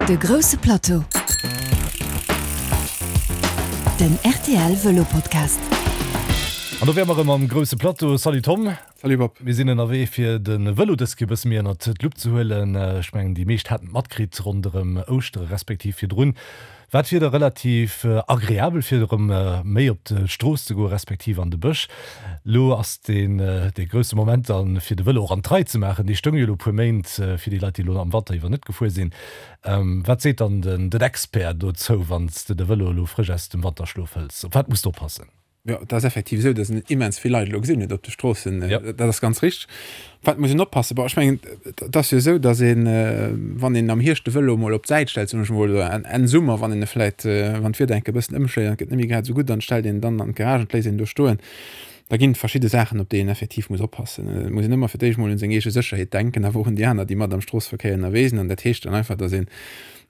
De grousse Plateau, den rtl Vëlo Podcast. An do wäre mer erëm am grousse Plateau. Salut Tom. Salut Bob. Mir sinn ënnerwee fir de Vëlo dës Kéier e bësse méi ënnert d'Lupp ze huelen. Ech mengen déi meescht haten et matkritt ronderëm Ouschtere respektiv virdrun war d'Wieder relativ agreabel fir erëm méi op d'Strooss ze goen respektiv an de Bësch. Lo ass deen dee grousse Moment dann fir de Vëlo och an d'Rei ze maachen. Dee stoung jo elo e puer Méint fir déi Leit déi elo am Wanter iwwer net gefuer sinn. Wat seet dann den den Expert dozou wann s de de Vëlo elo frësch aus dem Wanterschlof hëls? Op wat muss de oppassen? Jo, et ass effektiv esou, datt een immens vill Leit elo gesinn huet op de Stroossen. Dat ass ganz richteg. Op wat muss een oppassen? Bon, ech mengen, et ass jo esou, datt een, wann een am Hierscht de Vëlo emol op d'Säit stellt, soen ech emol, oder Enn Summer, wann een e vläicht, wann d'Wieder enke bëssen ëmschléit an et gëtt net méi grad esou gutt, dann stellt een en dann an d'Garage an léisst een do stoen. Da ginn et verschidde Saachen, op déi een effektiv muss oppassen. Et muss een ëmmer fir d'éischt emol un seng eege Sécherheet denken, awer och un déi aner, déi mat am Stroosseverkéier ënnerwee sinn. An dat heescht dann einfach, datt een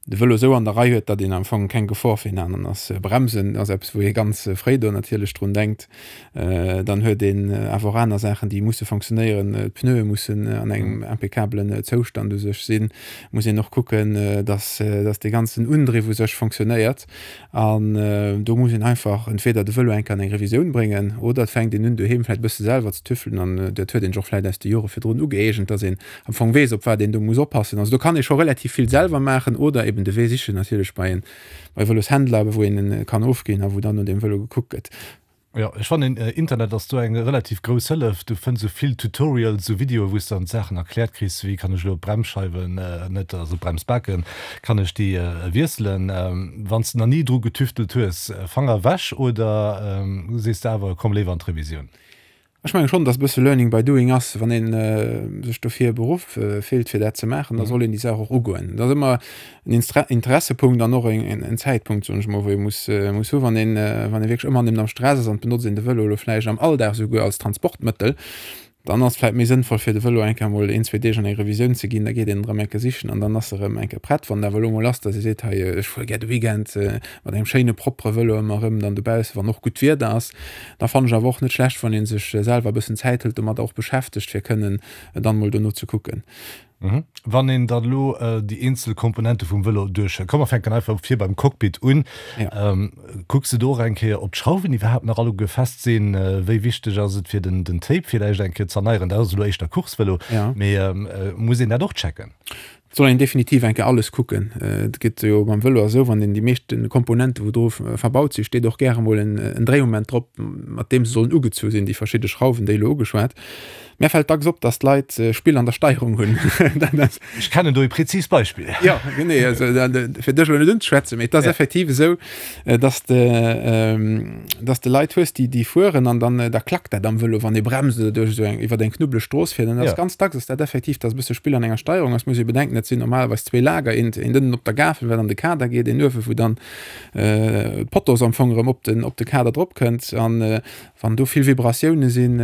de Vëlo esou an der Rei huet, datt een am Fong keng Gefor fir een aneren ass. Bremsen ass eppes, wou ee ganz fréi do natierlech drun denkt. Dann huet een awer och aner Saachen, déi musse fonctionnéieren. D'Pneue mussen an engem impeccabelen Zoustand u sech sinn. Muss een och kucken, datt, datt dee ganzen Undriff u sech fonctionnéiert. An do muss een einfach entweder de Vëlo eng Kéier an eng Revisioun bréngen oder et fänkt een un doheem vläicht e bësse selwer ze tüffelen an dat huet een sech och vläicht aus de Jore virdrun ugëeegent, datt een am Fong weess, op wat een do muss oppassen. Also do kann ee scho relativ vill selwer maachen oder eben de Wee sichen natierlech bei en bei Vëloshändler, wou een en kann ofginn a wou dann no deem Vëlo gekuckt gëtt. Jo, ech fannen Internet ass do eng relativ grouss Hëllef. Du fënns esou vill Tutorials, esou Videoe wou s de dann d'Saachen erkläert kriss, wéi kann ech elo d'Bremsscheiwen, net, also d'Bremsbaken, kann ech déi wiesselen. Wann s de nach ni dru getüftelt hues, Fanger ewech oder sees de awer komm léiwer an d'Revisioun? Ech mengen schonn, dass e bësse Learning by doing ass. Wann ee sech dofir beruff fillt, fir dat ze maachen, da soll een déi Saach och ugoen. Et ass ëmmer en Interessepunkt an och en Zäitpunkt, soen ech emol, wou ee muss muss hu wann een, wann ee wierklech ëmmer nëmmen am Stress ass an et benotzt een de Vëlo elo vläicht am Alldag esouguer als Transportmëttel, dann ass et vläicht méi sënnvoll, fir de Vëlo eng Kéier emol een, zwee Deeg an eng Revisioun ze ginn. Da geet een en erëm eng Kéier sichen an dann ass e erëm eng Kéier prett. Wann et awer elo emol ass, dass ee seet, hei ech fuere gär de Weekend mat engem schéine propere Vëlo ëmmer erëm dann dobaussen, wann och gutt Wieder ass, Da fannen ech awer och net schlecht, wann een sech selwer e bëssen Zäit hëlt, domadder och beschäftegt, fir kënnen dann mol dono ze kucken. Wann een dann elo déi eenzel Komponente vum Vëlo duerchhëlt, komm mer fänken einfach vir beim Cockpit un, kucks de do och eng Kéier, ob d'Schrauwen iwwerhaapt nach alleguer fest sinn? Wéi wichteg ass et fir den Tape villäicht eng Kéier z'erneieren? Dat ass elo éischter Coursevëlo, mee muss een dat och checken? Et soll een definitiv eng Kéier alles kucken. Et gëtt jo beim Vëlo esou, wann een déi meeschte Komponente wou dru verbaut sinn, steet och gäre mol en Dréimoment drop, mat deem se sollen ugezu sinn, déi verschidde Schrauwen, déi elo ugeschwat. Mär fält dacks op, datt d'Leit Spill an der Steierung hunn. Ech kennen do e präzist Beispill. Jo, genee. Also fir dech elo net unzeschwätzen, mee et ass effektiv esou, dass de dass de Leit hues déi déi fueren an dann da klackt dat am Vëlo wann ee bremst oder duerch esou eng iwwer eng knubbeleg Strooss fiert an dat ass ganz dacks ass dat effektiv dass e bësse Spill an enger Steierung ass. Muss ee bedenken dat sinn normalerweis zwee Lager eent eent ënnen op der Gafel wat an de Kader geet een uewe wou dann d'Potos am Fong erëm op den op de Kader drop kënnt an Wann do vill Vibratioune sinn,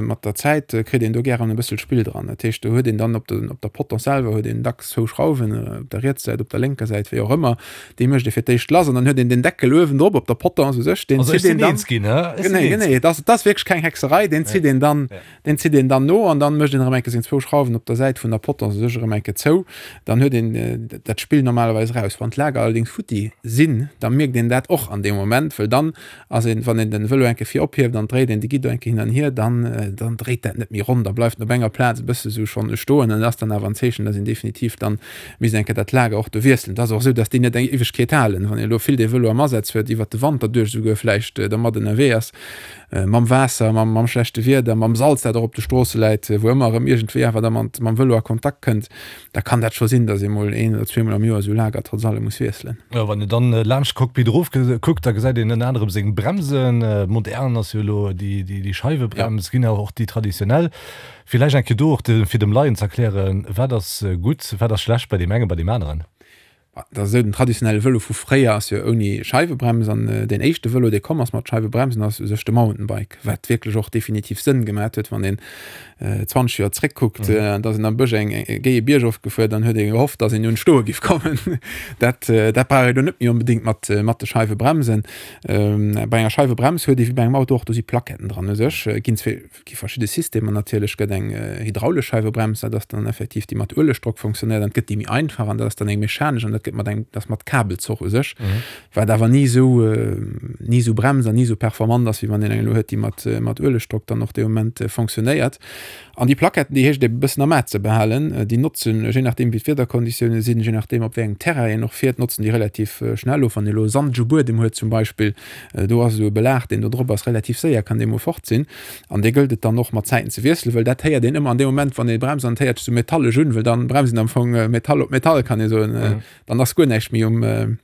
mat der Zäit kritt een do gären e bëssel Spill dran. Dat heescht, do huet een dann op de, op der Potence selwer huet een dacks zwou Schrauwen, op der rietser Säit, op der lénker Säit, wéi och ëmmer. Déi mécht ee fir d'éischt lass an dann huet een den Deckel uewendrop op der Potence u sech, deen zitt een dann. Genee, genee, et ass, et ass wierklech keng Hexerei, deen zitt een dann, deen zitt een dann no an dann mécht een erëm eng Kéier seng zwou Schrauwen op der Säit vun der Potence u sech erëm eng Kéier zou. Dann huet een dat Spill normalerweis raus. Wann d'Lager allerdéngs futti sinn, da mierkt een dat och an deem Moment, wëll dann Ass een, wann een den Vëlo enke vir ophieft an dréit een de Guidon enke hin an hier, dann, dann dréit dat net méi ronn, da bleift en op enger Plaz e bësse sou schonn stoen an dat ass dann awer en Zeechen, dass een definitiv dann misst enke dat Lager och do wiesselen. Et ass och esou, dass déi net eng Éiwegkeet halen. Wann een elo vill dee Vëlo am Asaz huet, iwwert de Wanter duerch esouguer vläicht dermat ënnerwee ass, mam Waasser, mam, mam schlechte Wieder, mam Salz, dat och op de Stroosse läit, wou ëmmer erëm iergendwéi awer da mat, mam Vëlo a Kontakt kënnt, Da kann dat scho sinn, datt ee mol een oder zweemol am Joer esou Lager trotz allem muss wiesselen. Jo, wann een dann laanscht d'Cockpit erof kuckt, da gesäit een ënner anerem seng Bremsen. Modern ass jo elo déi Scheiwebrems, ginn awer och déi traditionell. Villäicht eng Kéier do och fir dem Laien z'erklären, wat ass gutt, wat ass schlecht bei deem engen, bei deem aneren? Dat ass esou, den traditionelle Vëlo vu fréier ass jo ouni Scheiwebrems an deen éischte Vëlo, dee komm ass mat Scheiwebremsen, ass u sech de Mountainbike, wat wierklech och definitiv Sënn gemat huet, wann een 20 Joer zréckkuckt, da ass een am Bësch eng géie Bierg ofgefuer, dann huet ee gehofft, datt een un d'Stoe giff kommen. Dat dat brauch ee lo net méi onbedéngt mat mat de Scheiwebremsen. Bei enger Scheiwebrems huet ee wéi bei engem Auto och, do si Plaquetten dran u sech, ginn zwee Et gi verschidde Systemer natierlech, gëtt eng hydraulesch Scheiwebrems, dat ass dann effektiv déi mat Uelegdrock funktionéiert, an et gëtt déi méi einfach an dat ass dann eng mechanesch an dat gëtt. gëtt mat engem, dat ass mat Kabelzoch u sech, wat awer ni esou, ni esou bremst an ni esou performant ass, wéi wann een eng elo huet, déi mat, mat Uelegdrock dann och dee Moment fonctionnéiert. An déi Plaquetten, déi heescht et e bëssen am A ze behalen. Déi notzen, je nachdeem wéi d'Wiederkonditioune sinn, je nachdeem op wéi engem Terrain een och fiert, notzen déi relativ schnell of. Wann ee elo sandege Buedem huet zum Beispill, do ass esou e Belag, deen do drop ass, relativ séier kann dee mol fort sinn. An dee gëllt et dann och mat Zäiten ze wiesselen, well dat héiert een ëmmer an deem Moment, wann ee bremst an et héiert sech esou metallesch un, well dann bremst een am Fong Metall op Metall, kann ee soen. Dann ass guer näischt méi um.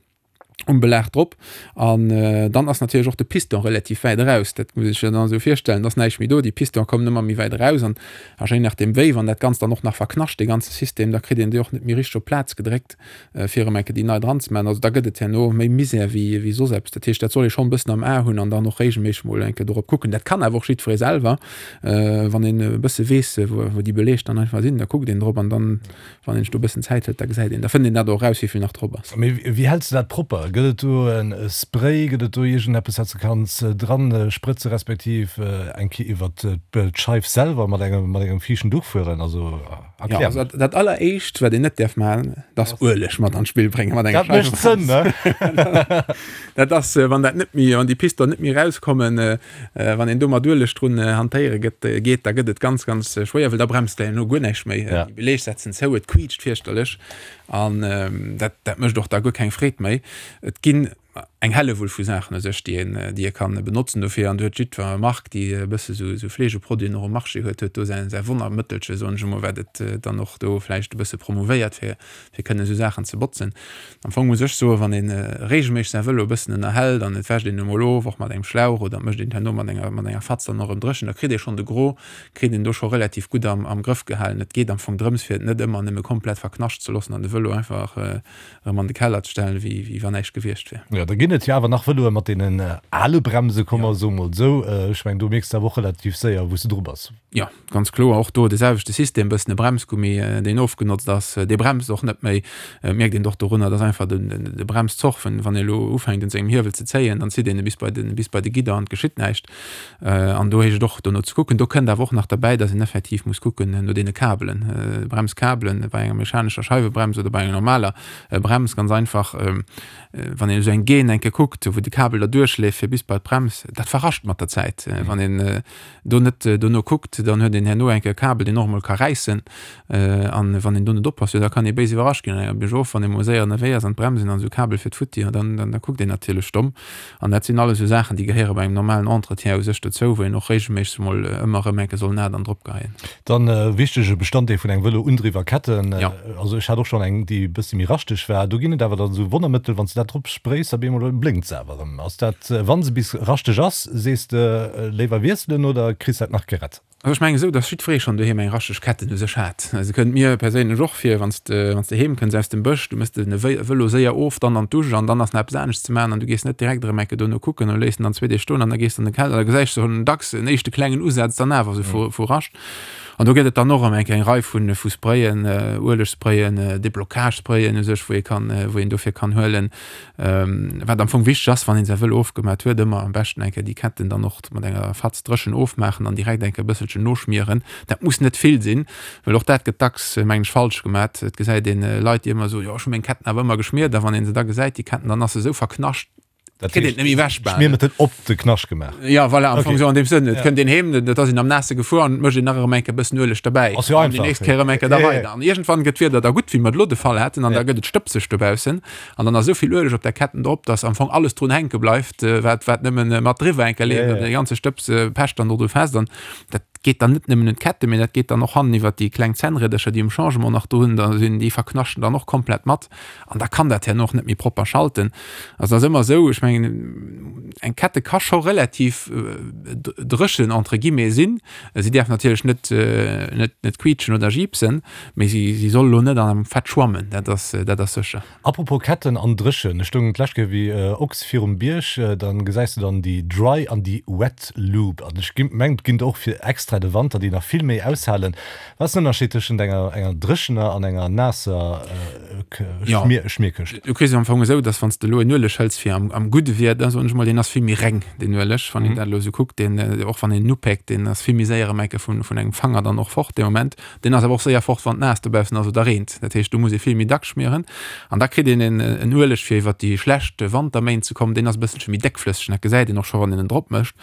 um Belag drop an dann ass natierlech och de Piston relativ wäit eraus. Dat muss ee sech dann esou virstellen, et ass näischt méi do, déi Piston kommen ëmmer méi wäit eraus an a je nachdeem wéi, wann dat Ganzt dann och nach verknascht, dee ganze System, da kritt een déi och net méi richteg op d'Plaz gedréckt, fir erëm eng Kéier déi nei dran ze maachen. Also da gëtt et herno méi Misär wéi wéi soss eppes. Dat heescht, dat soll ee schonn e bëssen am A hunn an dann och regelméisseg mol eng Kéier dorop kucken. Dat kann awer och jiddweree selwer, wann een e bësse weess, wou déi Beleeg dann einfach sinn, da kuckt een drop an dann Wann een sech do e bëssen Zäit hëlt, da gesäit een, da fënnt een dat och eraus, wéi vill nach drop ass. Mee wéi häls de dat propper? Gëtt et do e Spray, gëtt et do iergendeppes, wat s de kanns dran sprëtze respektiv eng Kéier iwwert d'Scheif selwer mat engem mat engem fiichten Duch fueren? Also erklär mol. Also dat alleréischt, wat een net däerf maachen, dat ass Ueleg mat an d'Spill bréngen mat enger Dat mécht Sënn, ne? Dat ass, wann dat net méi, wann déi Piston net méi erauskommen, Wann een do mat Ueleg drun hantéiere gëtt, geet, da gëtt et ganz, ganz schwéier, well da bremst der herno guer näischt méi. Déi Beleeg setzen zou, et quiitscht fierchterlech an dat, dat mécht och da guer keng Freed méi. Et ginn eng Hellewull vu Saachen u sech, déi een, déi ee kann benotzen dofir an do huet jiddwer Mark, déi e bësse sou, sou Fleegeproduiten och um Marché huet, huet do säin, säi Wonnermëttelche, soen ech emol, wat et dann och do vläicht e bësse promouvéiert, fir, fir kënnen esou Saachen ze botzen. Am Fong muss ech soen, wann een regelméisseg säi Vëlo e bëssen ënnerhält an et wäscht een e mol of, och mat engem Schlauch oder et mécht een et herno mat enger mat enger Fatz dann och erëm dréchen, da kritt ee schonn de Gros, kritt een do scho relativ gutt am am Grëff gehalen. Et geet am Fong drëms, fir et net ëmmer nëmme komplett verknascht ze loossen an de Vëlo einfach erëm an de Keller ze stellen, wéi wéi wann näischt gewiescht wier. Jo, da ginn et jo awer nach Vëloe mat deenen ale Bremse, komm mer soe mol esou. Ech mengen, do mierks de awer och relativ séier, wou s de dru bass. Jo, ganz kloer, och do de selwechte System, bëssen e Bremsgummi, deen ofgenotzt ass, dee bremst och net méi. Et mierkt een och dorunner, dass einfach de Bremszoch, wann ee elo ufänkt un sengem Hiewel ze zéien, dann zitt een e bis bei de, bis bei de Gidder an et geschitt näischt. An do heescht et och dono ze kucken. Do kënnt awer och nach derbäi, dass een effektiv muss kucken no deene Kabelen, Bremskabelen bei enger mechanescher Scheiwebrems oder bei enger normaler Brems, ganz einfach, wann een esou eng Gaine eng Kéier kuckt, wou de Kabel da duerchleeft fir bis bei d'Brems, dat verrascht mat der Zäit. Wann een do net dono kuckt, dann huet een herno eng Kéier e Kabel, deen och emol ka räissen. An wann een do net oppasst, jo da kann ee béis iwwerrascht ginn an enger Biergof, wann ee mol séier ënnerwee ass an d'Bremsen an esou Kabel fiert futti, jo dann, dann da kuckt een natierlech domm. An dat sinn alles esou Saachen, déi gehéiere bei engem normalen Entretien u sech dozou, wou een och regelméisseg emol ëmmer erëm eng Kéier soll en A dann drop geheien. Dann e wichtege Bestanddeel vun engem Vëlo, Undriff a Ketten. Also ech hat och schonn eng, déi e bëssi méi raschteg war. Do ginn et awer dann esou Wonnermëttel, wann s de dat drop spréis, op eemol blénkt se awer erëm. Ass dat, wa se bis raschteg ass, sees de léiwer wiesselen oder kriss dat nach gerett? Also ech mengen esou, dass jiddweree schonn doheem eng raschteg Ketten u sech hat. Se kënnt mir perséinlech och vir, wann s de, wann s de heem kënns aus dem Bësch, du mëss de Vëlo séier of, dann an d'Dusch an dann ass nach eppes anescht ze maachen an du gees net direkt erëm eng Kéier dono kucken an léiss en dann zwee Deeg stoen an da gees de an de Keller, da gesäis de schonn dacks en éischte klengen Usaz dann awer esou vu Rascht. An do gëtt et dann och erëm eng eng Rei vu vu Sprayen, Uelegsprayen, Déblocagesprayen u sech, wou ee kann, wou een dofir kann huelen. Wat am Fong wichteg ass, wann een säi Vëlo ofgemat huet, ëmmer am beschten eng Kéier déi Ketten dann och mat enger Fatz dréchen ofmaachen an direkt eng Kéier e bësselchen noschmieren. Dat muss net vill sinn, well och dat gëtt dacks, mengen ech, falsch gemat. Et gesäit een Leit, déi ëmmer soen, jo ech hu meng Ketten awer ëmmer geschmiert a wann ee se da gesäit, déi Ketten, dann ass se esou verknascht, Dat kritt een net méi ewech bal. Schmiermëttel op de Knascht gemaach. Ja, voilà, am Fong okay. Sou an deem Sënn. Et kënnt een heem, dat ass een am Naasse gefuer an mécht een nach erëm eng Kéier bëssen Ueleg derbäi. Ass jo einfach. Déi nächst Kéier erëm eng Kéier da weider. An iergendwann gëtt d'Wieder da gutt, wéi mer et elo de Fall haten, an da gëtt et stëbseg dobaussen. An dann ass esou vill Ueleg op der Ketten drop, dass am Fong alles drun hänke bleift, wat, wat nëmmen mat driwwer eng Kéier leeft. An dee ganze Stëbs pecht dann do dru fest. An dat geet dann net nëmmen un d'Kette, mee dat geet dann och hannen iwwert déi kleng Zännriedercher, déi um Changement nach drun da sinn, déi verknaschten dann och komplett mat. An da kann dat herno och net méi propper schalten. Also dat ass ëmmer esou, ech mengen, eng Kette ka scho relativ dréchen entre guillemets sinn. Si däerf natierlech net, net, net quiitschen oder jiipsen, mee si, si soll elo net an engem Fett schwammen, dat ass, dat ass sécher. Apropos Ketten an dréchen, ech stoung d'lescht Kéier wéi Ochs virum Bierg, dann gesäis de dann déi Dry an déi Wet Loop. An ech mengen, et ginn der och fir extra. extra de Wanter, déi nach vill méi aushalen. Wat ass den Ënnerscheed tëschent enger enger dréchener an enger naasser Schmierkëscht? Du kriss et am Fong esou, dass wann s de elo en Ueleg hëls fir am am gudde Wieder, soen ech mol, deen ass vill méi reng, deen Ueleg, wann een dat elo esou kuckt, deen, och wann een en upéckt, deen ass vill méi séier erëm eng Kéier vun vun engem Fanger dann och fort dee Moment. Deen ass awer och séier fort, wann et naass dobaussen ass oder reent. Dat heescht, do muss ee vill méi dacks schmieren. An da kritt een en en Ueleg fir iwwert déi schlecht Wanterméint ze kommen, deen ass e bësselche méi déckflësseg, dat gesäit een och scho wann een en drop mécht.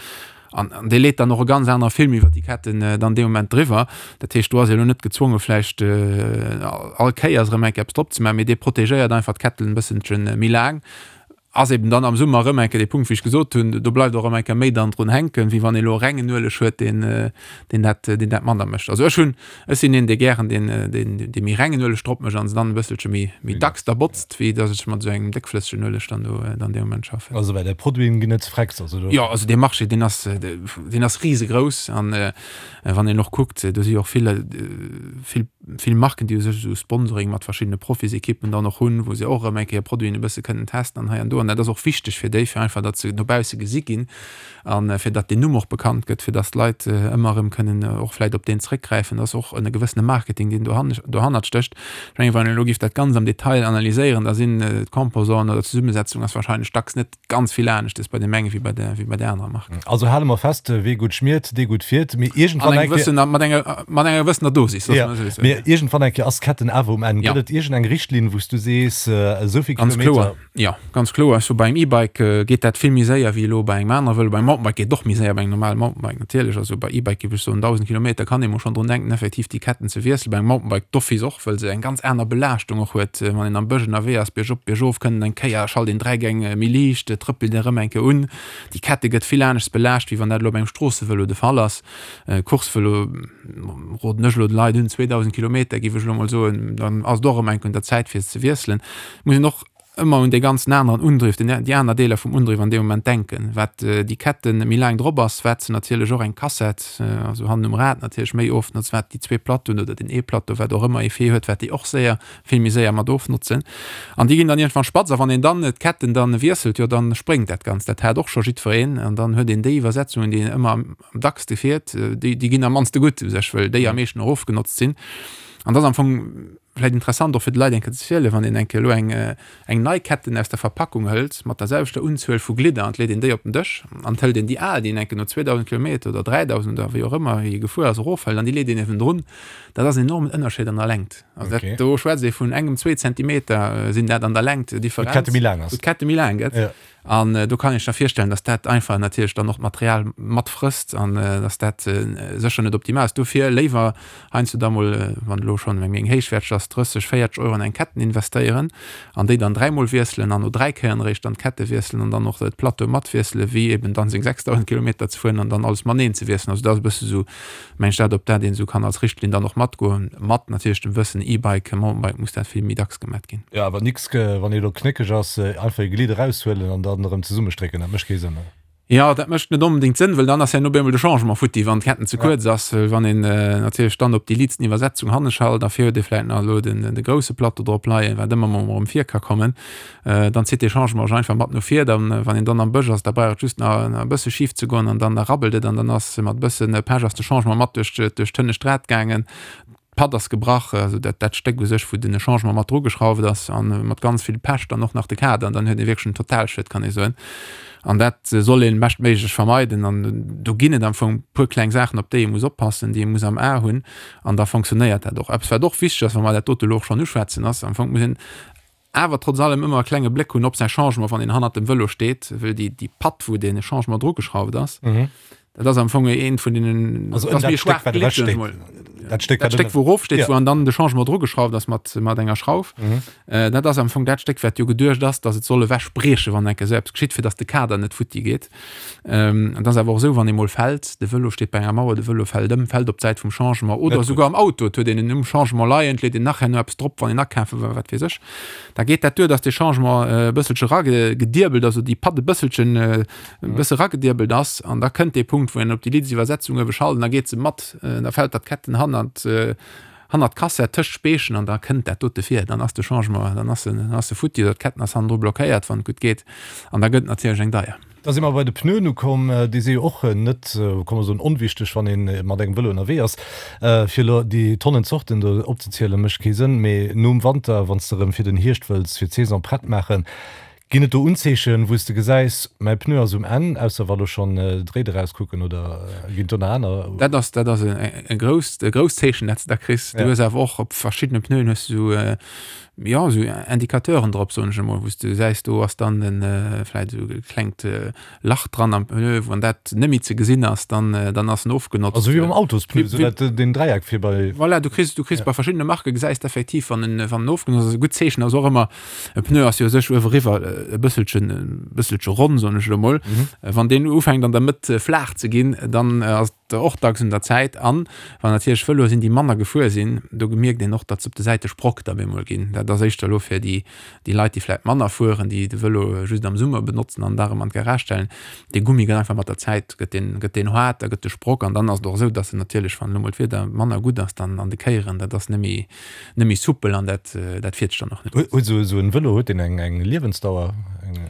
An dee leet dann och e ganz anere Film iwwer déi Ketten dann dee Moment driwwer. Dat heescht, do ass ee lo net gezwonge vläicht all Kéiers erëm eng Kéier eppes drop ze maachen, mee dee protegéiert einfach d'Ketten e bësselche méi laang. Ass eben dann am Summer erëm eng Kéier dee Punkt, wéi ech gesot hunn, do bleift och erëm eng Kéier méi dann drun hänken, wéi wann ee lo e rengen Ueleg huet, deen deen dat deen dat manner mécht. Also ech hunn, ech sinn een, dee gären deen deen dee méi rengen Ueleg drop mécht an se dann e bësselche méi méi dacks da botzt, wéi datt ech mat esou engem déckflëssegen Ueleg dann do dann dee Moment schaffen. Also well där Produiten ginn net frecks, also do. Jo, also dee Marché, deen ass deen ass risegrouss an wann een och kuckt, do si jo och vill vill vill Marken, déi u sech esou Sponsoring mat verschiddene Profisekippen dann och hunn, wou se och erëm eng Kéier Produiten e bësse kënnen testen an hei an do. An dat ass och wichteg fir déi, fir einfach, datt se no bausse gesi ginn a fir datt deen Numm och bekannt gëtt, fir datt d'Leit ëmmer erëm kënnen och vläicht op deen zréckgräifen. Dat ass och e gewëssene Marketing, deen dohannert stécht. Ech mengen, wann een elo géif dat Ganzt am Detail analyséieren, da sinn d'Composanten oder d'Zesummesetzung ass wahrscheinlech dacks net Ganz vill aneschtes bei deem enge wéi bei der, wéi bei der anerer Mark. Also hale mer fest, Wee gutt schmiert, dee gutt fiert. Mee iergendwann eng Kéier. Mat enger, mat enger gewëssener Dosis, loosse mer esou soen. Mee iergendwann eng Kéier ass d'Ketten awer um Enn. Gëtt et iergend eng Richtlinn, wou s du sees, esou vill Kilometer. Ganz kloer, jo, ganz kloer. Ech soe bei engem E-Bike geet dat vill méi séier wéi elo bei engem anere Vëlo. Beim Mountainbike geet et och méi séier, bei engem normale Mountainbike natierlech. Also bei E-Bike géif ech soen, 1.000 Kilometer kann ee mol schonn drun denken, effektiv déi Ketten ze wiesselen. Bei engem Mountainbike d'office och. Wëll se eng ganz aner Belaaschtung och huet, wann een am Bësch ënnerwee ass, biergop, biergof, kënnt eng Kéier, schalt een 3 Gäng méi liicht, trëppelt een erëm eng Kéier un. Déi Kette gëtt vill aneschts belaascht, wéi wann dat elo op engem Stroossevëlo de Fall ass. Coursevëlo roden ech elo de Leit un, 2.000 Kilometer géif ech elo mol soen, dann ass et och erëm eng Kéier un der Zäit fir se ze wiesselen. Muss een och ëmmer un dee ganzen aneren Undriff, den, déi aner Deeler vum Undriff an deem Moment denken. Wat déi Ketten méi laang drop ass, wat se natierlech och eng Kassett, also hannen um Rad natierlech méi ofnotzt, wat déi zwee Plateauen oder den ee Plateau, wat och ëmmer Effet huet, wat déi och séier, vill méi séier mat ofnotzen. An déi ginn dann iergendwann spatz. A wann een dann d'Ketten dann wiesselt, jo dann spréngt dat Ganzt. Dat hat och scho jiddwereen. An dann huet een déi Iwwersetzungen, déi een ëmmer am dackste fiert, déi, déi ginn am mannste gutt u sech, wëll déi am meeschten och ofgenotzt sinn. An dat ass am Fong Vläit interessant och fir de Leit eng Kéier ze zielen, wann een eng Kéier elo eng eng nei Ketten aus der Verpackung hëlt mat der selwechter Unzuel vu Glidder an et leet een déi op den Dësch an et hëlt een déi al, déi een eng Kéier no 2.000 Kilometer oder 3.000 oder wéi och ëmmer wéi ee gefuer ass, erofhëlt an déi leet een niewendrun, dat ass en enormen Ënnerscheed an der Längt. Also dat, do schwätzt ee vun engem, zwee Zentimeter sinn dat an der Längt Differenz, wou d'Kette méi laang gëtt. An do kann ee sech da virstellen, dass dat einfach natierlech dann och d'Material matfrësst an dass dat sécher net optimal ass. Dofir léiwer heiansdo da mol, wann elo schonn eng méi héichwäerteg ass, 30, 40 Euro an eng Ketten investéieren an déi dann dräimol wiesselen an no dräi Kéieren eréischt dann d'Kette wiesselen an dann och d'Plateau matwiesselen, wéi eben dann seng 6.000 Kilometer ze fueren an dann alles mateneen ze wiesselen. Also dat ass e bësse sou Mengt dat op dat een esou kann als Richtlinn dann och matgoen, mat natierlech dem Wëssen, E-Bike, Mountainbike muss dat vill méi dacks gemat ginn. Jo, awer nix wann ee lo knéckeg ass, einfach ee Glidd eraushuelen an dann erëm zesummestrécken, dat mécht kee Sënn, ne? Jo, dat mécht net onbedéngt Sënn, wëll dann ass herno op eemol de Changement futti, wann d'Ketten ze kuerz ass, wëll wann een natierlech dann op déi liitsten Iwwersetzung hanne schalt a vir huet ee vläit nach elo den de grousse Plateau drop leien, wat ëmmer mol erëm vir ka kommen, Dann zitt dee Changement sech einfach mat no vir. Dann, wann een dann am Bësch ass, da brauch et just nach e bësse schif ze goen an dann da rabbelt et an dann ass mat e bësse Pech ass de Changement mat duerch duerch d'hënnescht Rad gaangen. D'Patt ass gebrach, also dat dat Stéck u sech, wou den Changement mat drugeschrauft ass an mat ganz vill Pech dann och nach de Kader an dann huet ee wierklech en Totalschued, kann ee soen. An dat soll ee beschtméiglech vermeiden an do ginn et am Fong e puer kleng Saachen, op déi ee muss oppassen, déi ee muss am A hunn an da fonctionnéiert dat och. Eppes wat och wichteg ass, wa mer dat dote elo och schonn uschwätzen, ass am Fong muss een Awer trotz allem ëmmer e klenge Bléck hunn op säi Changement, wann een hannert dem Vëlo steet, wëll déi, déi Patt, wou dee Changement drugeschrauft ass, dat ass am Fong eent vun deenen, Also dat ass méi e schwaacht Glidd, soen ech mol. Dat Stéck, dat Stéck, wou erof steet, wou an dann de Changement drugeschrauft ass mat, mat enger Schrauf, dat ass am Fong dat Stéck, wat jo geduecht ass, datt et soll ewech briechen, wann eng Kéier esou eppes geschitt, fir datt de Kader net futti geet. Et ass awer och esou, wann ee mol fält, de Vëlo steet bei enger Mauer, de Vëlo fält ëm, fält op d'Säit vum Changement oder esouguer am Auto, et huet een en um Changement leien, et leet een nach herno eppes drop, wann een akafe war, wat weess ech, da geet dat duer, datt dee Changement e bësselche eragediebelt ass oder déi Patt e bësselchen, e bësse eragediebelt ass an da kënnt dee Punkt, wou een op déi Liddsiwwersetzung uewe schalt an da geet se mat, da fält dat d'Ketten hannert, hannert d'Kassett tëscht d'Speechen an da kënnt dat dote vir, dann ass de Changement, dann ass en, dann ass e futti oder d'Ketten ass hannendru blockéiert, wann et gutt geet an da gëtt et natierlech eng deier. Da si mer bei de Pneuen ukomm. Déi si jo och net, kann mer soen, onwichteg, wann ee mat engem Vëlo ënnerwee ass. Fir elo déi Tonnen Zorten do opzezielen, mécht kee Sënn. Mee nom Wanter, wann s de erëm fir den Hierscht wëlls, fir d'Saison prett maachen, ginn et do Unzeechen, wou s de gesäis, mäi Pneu ass um Enn, ausser wa lo schonn d'Réid erauskucken, oder ginn et do nach aner? Dat ass, dat ass e grousst, e grousst Zeechen, dat s de da kriss. Du hues awer och op verschiddene Pneuen hues de esou, jo, esou Indicateuren drop, soen ech emol, wou s de gesäis, do ass dann en vläit esou e klengt Lach dran am Pneu, wann dat net méi ze gesinn ass, dann, dann ass en ofgenotzt. Also wéi beim Autospneu, esou dat, deen Dräieck vir bei. Voilà, du kriss, du kriss bei verschiddene Marke gesäis de effektiv, wann en, wann en ofgenotzt ass. E gutt Zeechen ass och ëmmer, e Pneu ass jo u sech ueweriwwer e bësselchen, e bësselche ronn, soen ech elo mol. Wann deen ufänkt an der Mëtt flaach ze ginn, dann ass och dacks un der Zäit. An wann natierlech Vëloe sinn, déi manner gefuer sinn, do mierkt een och, datt se op de Säite Sprock da bemol ginn. Dat ass éischter elo fir déi, déi Leit, déi vläicht manner fueren, déi de Vëlo just am Summer benotzen an da erëm an d'Garage stellen. Dee Gummi gëtt einfach mat der Zäit gëtt deen, gëtt deen haart, da gëtt de Sprock an dann ass et och esou, datt en natierlech, wann elo mol d'Wieder manner gutt ass, dann an de Kéieren, dat ass net méi, net méi soupel an dat, dat fiert sech dann och net. Huet esou en Vëlo, huet deen eng, eng Liewensdauer? Eng.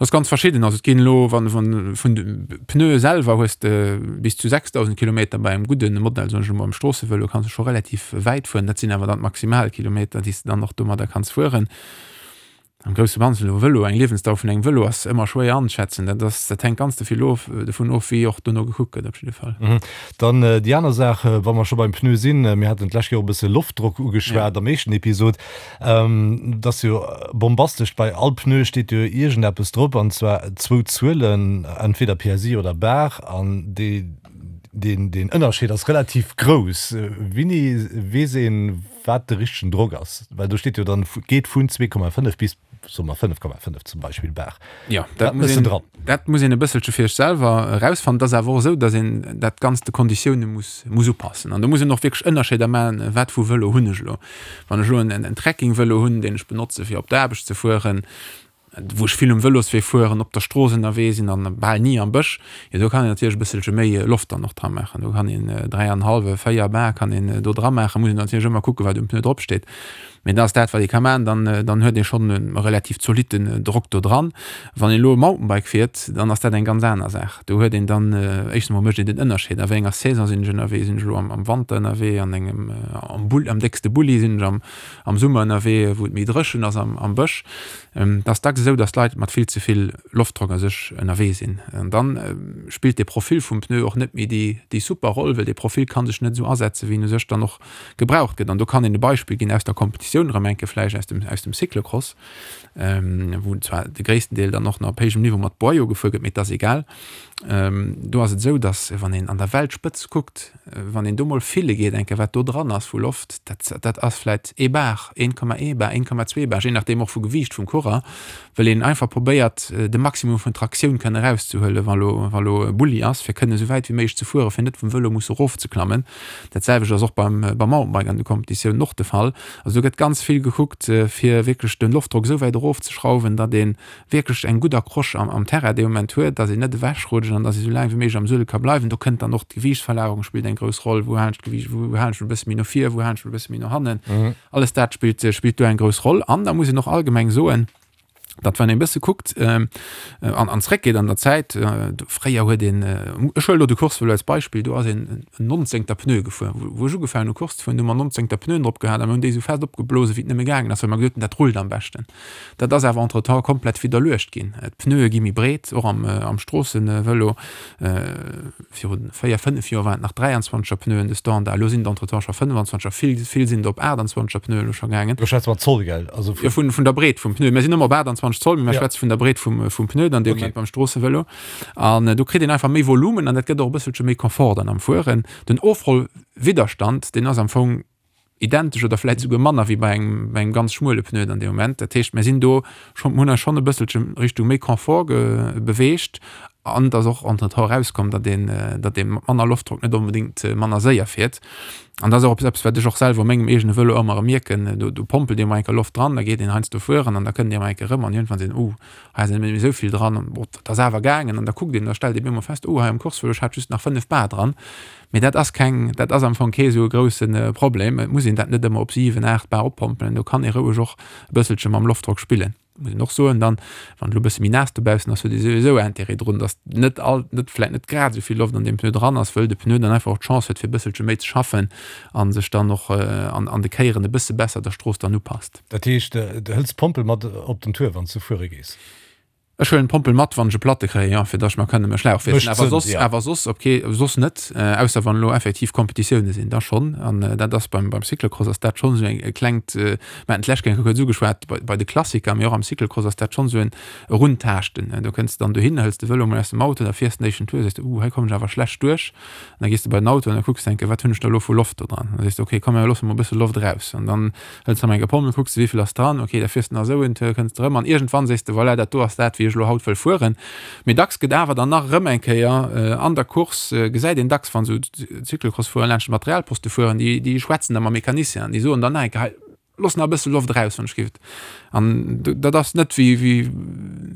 Dat ass ganz verschidden. Also et ginn elo, wann, wann vun de Pneue selwer hues de bis zu 6.000 Kilometer bei engem gudde Modell, soen ech elo mol, am Stroossevëlo kanns de scho relativ wäit fueren. Dat sinn awer dann d'Maximalkilometer, déi s de dann och domadder kanns fueren. Am grousse Ganzen elo Vëlo, eng Liewensdauer vun engem Vëlo ass ëmmer schwéier anzeschätzen. Dat ass, dat hänkt ganz de vill of, dovun of, wéi och dono gekuckt gëtt op jidde Fall. Dann déi aner Saach, wa mer scho beim Pneu sinn, mir haten d'lescht Kéier och e bësse Loftdrock ugeschwat am éischten Episod. Dat ass jo bombastesch, bei all Pneu steet jo iergendeppes drop, an zwar zwou Zuelen, entweder PSI oder Bar, an dee, deen, deen Ënnerscheed ass relativ grouss. Wéini weess een, wat de richtegen Drock ass? Well do steet jo dann, geet vun 2,5 bis, soe mer, 5,5 zum Beispill Bar. Jo, dat muss een, dat muss een e bësselche fir sech selwer erausfannen. Et ass awer och esou, datt een dat Ganzt de Konditioune muss, muss upassen. An do muss een och wierklech Ënnerscheeder maachen, wat vu Vëlo hunn ech elo. Wann ech elo en, en Trekkingvëlo hunn, deen ech benotze fir op d'Aarbecht ze fueren, wou ech vill um Vëloswee fueren, op der Strooss ënnerwee sinn an bal ni am Bësch, jo do kann een natierlech e bësselche méi Loft dann och dra maachen. Do kann een 3 an hallwe, 4 Bar kann een do dra maachen. Muss een natierlech ëmmer kucken, wat um Pneu drop steet. Mee dat ass dat, wat ee ka maachen, dann, dann huet ee schonn e relativ zolitten Drock do dran. Wann een elo e Mountainbike fiert, dann ass dat eng ganz aner Saach. Do huet een dann, éischtens emol mécht een den Ënnerscheed, a wéi enger Saison sinn ech ënnerwee, sinn ech elo am, am Wanter ënnerwee, an engem, am Bull, am déckste Bulli, sinn ech am, am Summer ënnerwee, wou et méi dréchen ass am, am Bësch. Et ass dacks esou, datt d'Leit mat vill ze vill Loftdrock a sech ënnerwee sinn. An dann spillt de Profil vum Pneu och net méi déi, déi super Roll, well dee Profil ka sech net esou asetzen, wéi en u sech dann och gebraucht gëtt. An do kann een e Beispill ginn aus der Kompetitioun erëm eng Kéier vläicht aus dem, aus dem Cyclocross, wou zwar de gréissten Deel dann och nach op héijem Niveau mat Boyau gefuer gëtt, mee et ass egal. Do ass et esou, datt wann een an der Weltspëtz kuckt, wann een do mol fille geet eng Kéier, wat do dran ass vu Loft, dat, dat ass vläicht ee Bar, 1,1 Bar, 1,2 Bar, jee nachdeem och vu Gewiicht vum Coureur, well een einfach probéiert de Maximum vun Traktioun kënne erauszehuelen, wa lo, wa lo e Bulli ass, fir kënne esou wäit wéi méiglech ze fueren, fir net vum Vëlo musse erofzeklammen. Dat selwecht ass och beim beim Mountainbike an de Kompetitiounen och de Fall. Also do gëtt ganz vill gekuckt, fir wierklech de Loftdrock esou wäit erofzeschrauwen, datt ee wierklech eng gutt Accroche am am Terrain dee Moment huet, datt een net ewechrutscht an datt ee sou laang wéi méiglech am Suedel ka bleiwen. Do kënnt dann och d'Gewiichtsverlagerung spillt eng grouss Roll. Wou halen ech d'Gewiicht, wou halen ech e bësse méi no vir, wou halen ech e bësse méi no hannen? Alles dat spillt spillt do eng grouss Roll. An da muss een och allgemeng soen, datt wann een e bësse kuckt an an zréckgeet an der Zäit, fréier huet een, ech huelen elo de Coursevëlo als Beispill, do ass een en nonzéngter Pneu gefuer. Wou ech ugefaangen hu Course ze fueren, hu mer nonzéngter Pneuen drop gehat a mir hunn déi esou fest opgeblose wéi et nëmme gaangen ass, well mer gesot hunn, dat rullt am beschten. Dat ass awer entretemps komplett widderluecht ginn. D'Pneue gi méi breet, och am am Stroossevëlo. Viru 4, 5 Joer waren et nach 23 er Pneuen de Standard, elo sinn et entretemps scho 25 er, vill, vill sinn der op 28 er Pneuen elo scho gaangen. Do schwätze mer Zoll, gell? Also vun. Jo, vun, vun der Breet vum Pneu. Mir sinn ëmmer op 28 Zoll, mee mir schwätze vun der Breet vum, vum Pneu dann dee Moment beim Stroossevëlo. An do kritt een einfach méi Volumen an dat gëtt och e bësselche méi Confort dann am Fueren. Den Ofrollwidderstand, deen ass am Fong identesch oder vläit esouguer manner wéi bei engem, bei engem ganz schmuele Pneu dann dee Moment. Dat heescht, mir sinn do schonn, mir hunn eis schonn e bësselche Richtung méi Confort ge beweegt an et ass och entretemps erauskomm, datt een, datt ee mat manner Loftdrock net onbedéngt manner séier fiert. An dat ass och eppes, wat ech och selwer u mengem eegene Vëlo ëmmer erëm mierken, do, do pompelt ee mol eng Kéier Loft dran, da geet een heiansdo fueren an da kënnt ee mol eng Kéier erëm an iergendwann seet een, oh, hei ass net méi esou vill dran, bon, dat ass awer gaangen. An da kuckt een, da stellt ee bemol fest, oh, hei am Coursevëlo, ech hat just nach 5 Bar dran. Mee dat ass keng, dat ass am Fong kee sou e grousse Problem. Et muss een dat net ëmmer op 7, 8 Bar oppompelen. Do kann ee roueg och e bësselche mam Loftdrock spillen. Muss een och soen dann, wann et elo e bësse méi naass dobaussen ass, huet ee souwisou Intérêt drun, datt net all, net vläicht net grad esou vill Loft an deem Pneu dran ass, wëll de Pneu dann einfach och d'Chance huet fir e bësselche méi ze schaffen a sech dann och an an de Kéieren e bësse besser der Strooss dann upasst. Dat heescht, du hëls d'Pompel mat op den Tour, wann s du fuere gees? Ech huelen d'Pompel mat, wann ech e Platte kréien, jo, fir datt ech mer kënne e Schlauch wiesselen. Awer soss, awer soss op kee, soss net, ausser wann elo effektiv Kompetitioune sinn, da schonn. An dat ass beim, beim Cyclocross ass dat schonn esou eng, e klengt, mir haten d'lescht Kéier kuerz ugeschwat, bei, bei de Klassiker, mee och am Cyclocross ass dat schonn esou en Eruntaaschten. Do kënns de dann dohin, hëls de Vëlo mol aus dem Auto, da fiers de den éischten Tour, sees de, uh, hei kommen ech awer schlecht duerch. An da gees de bei den Auto an da kucks de eng Kéier, wat hunn ech da elo vu Loft do dran? Da sees de, okay, komm, mir loosse mol e bësse Loft eraus. An dann Hëls rëm eng Pomme, kucks de wéivill ass dran, ok, da fiers de nach esou en Tour, kënns de rëm an iergendwann sees de, voilà, dat do ass dat wéi ech elo haut wëll fueren. Mee dacks gëtt awer dann nach erëm eng Kéier an der Course, gesäit een dacks wann esou Cyclocross-Fuerer laanscht de Materialposte fueren, déi déi schwätzen da mam Mecanicien an déi soen dann nach eng Kéier, hei looss nach e bësse Loft eraus wann ech giff. An dat ass net wéi wéi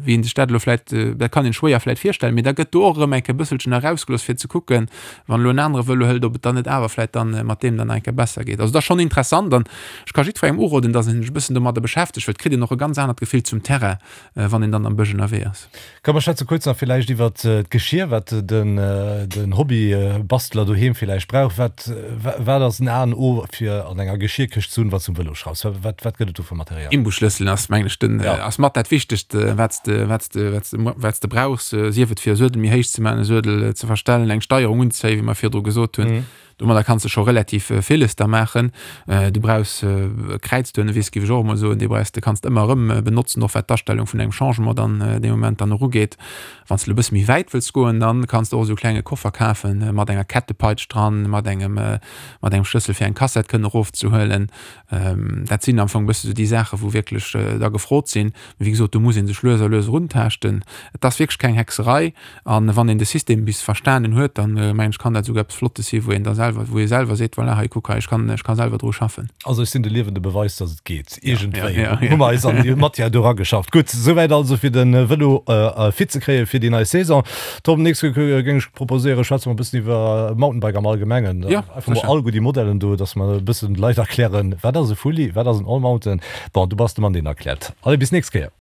wéi een sech dat elo vläit, dat kann een schwéier vläit virstellen, mee da gëtt do och erëm eng Kéier e bësselchen erausgelooss fir ze kucken, wann elo en anere Vëlo hëlt, ob et dann net awer vläit dann mat deem dann nach eng Kéier besser geet. Also dat ass schonn interessant an ech ka jiddwerengem uroden, datt en sech e bëssen domadder beschäftegt, well et kritt een och e ganz anert Gefill zum Terrain, wann een dann am Bësch ënnerwee ass. Komm mer schwätze kuerz nach villäicht iwwert d'Geschier, wat den Hobbybastler doheem villäicht brauch. Wat wat ass en A an O fir an enger Geschierkëscht ze hunn, wann s du um Vëlo schraufs? Wat wat gëtt et do fir Material? Imbusschlësselen ass mengen ech den ass mat dat wichtegst wat s de wat s de wat s de wat s de brauchs, sief et fir e Suedel méi héich ze maachen, e Suedel ze verstellen, eng Steierung unzéien, wéi mer virdru gesot hunn. Domadder kanns de scho relativ villes da maachen. Du brauchs e Kräizduernewiss, géif ech och emol soen, dee brauchs de, kanns de ëmmer erëm benotzen, och wat d'Astellung vun engem Changement dann dee Moment dann och ugeet. Wann s de elo e bësse méi wäit wëlls goen, dann kanns de och esou e klenge Koffer kafen mat enger Kettepeitsch dran, mat engem mat engem Schlëssel fir eng Kassett kënnen erofzehuelen. Dat sinn am Fong e bësse sou déi Saachen, wou wierklech da gefrot sinn. Mee wéi gesot, do muss ee sech lues a lues eruntaaschten. Et ass wierklech keng Hexerei. An wann een de System bis verstanen huet, dann mengen ech, kann dat esouguer eppes Flottes si wou een da selwer, wou ee selwer seet, voilà, hei kuck hei, ech kann, ech ka selwer dru schaffen. Also ech sinn de liewende Beweis, dass et geet. Iergendwéi hu mer eis an déi Matière do erageschafft. Gutt, souwäit also fir de Vëlo fit ze kréie fir déi nei Saison. Tom, nächst Kéier géing ech proposéieren, schwätze mer e bëssen iwwer Mountainbike am Allgemengen. Einfach mol all guer déi Modellen do, dass mer e bëssen de Leit erklären, wat ass e Fully, wat ass en Allmountain. Bon, du bass de Mann, deen erkläert. Allez, bis nächst Kéier.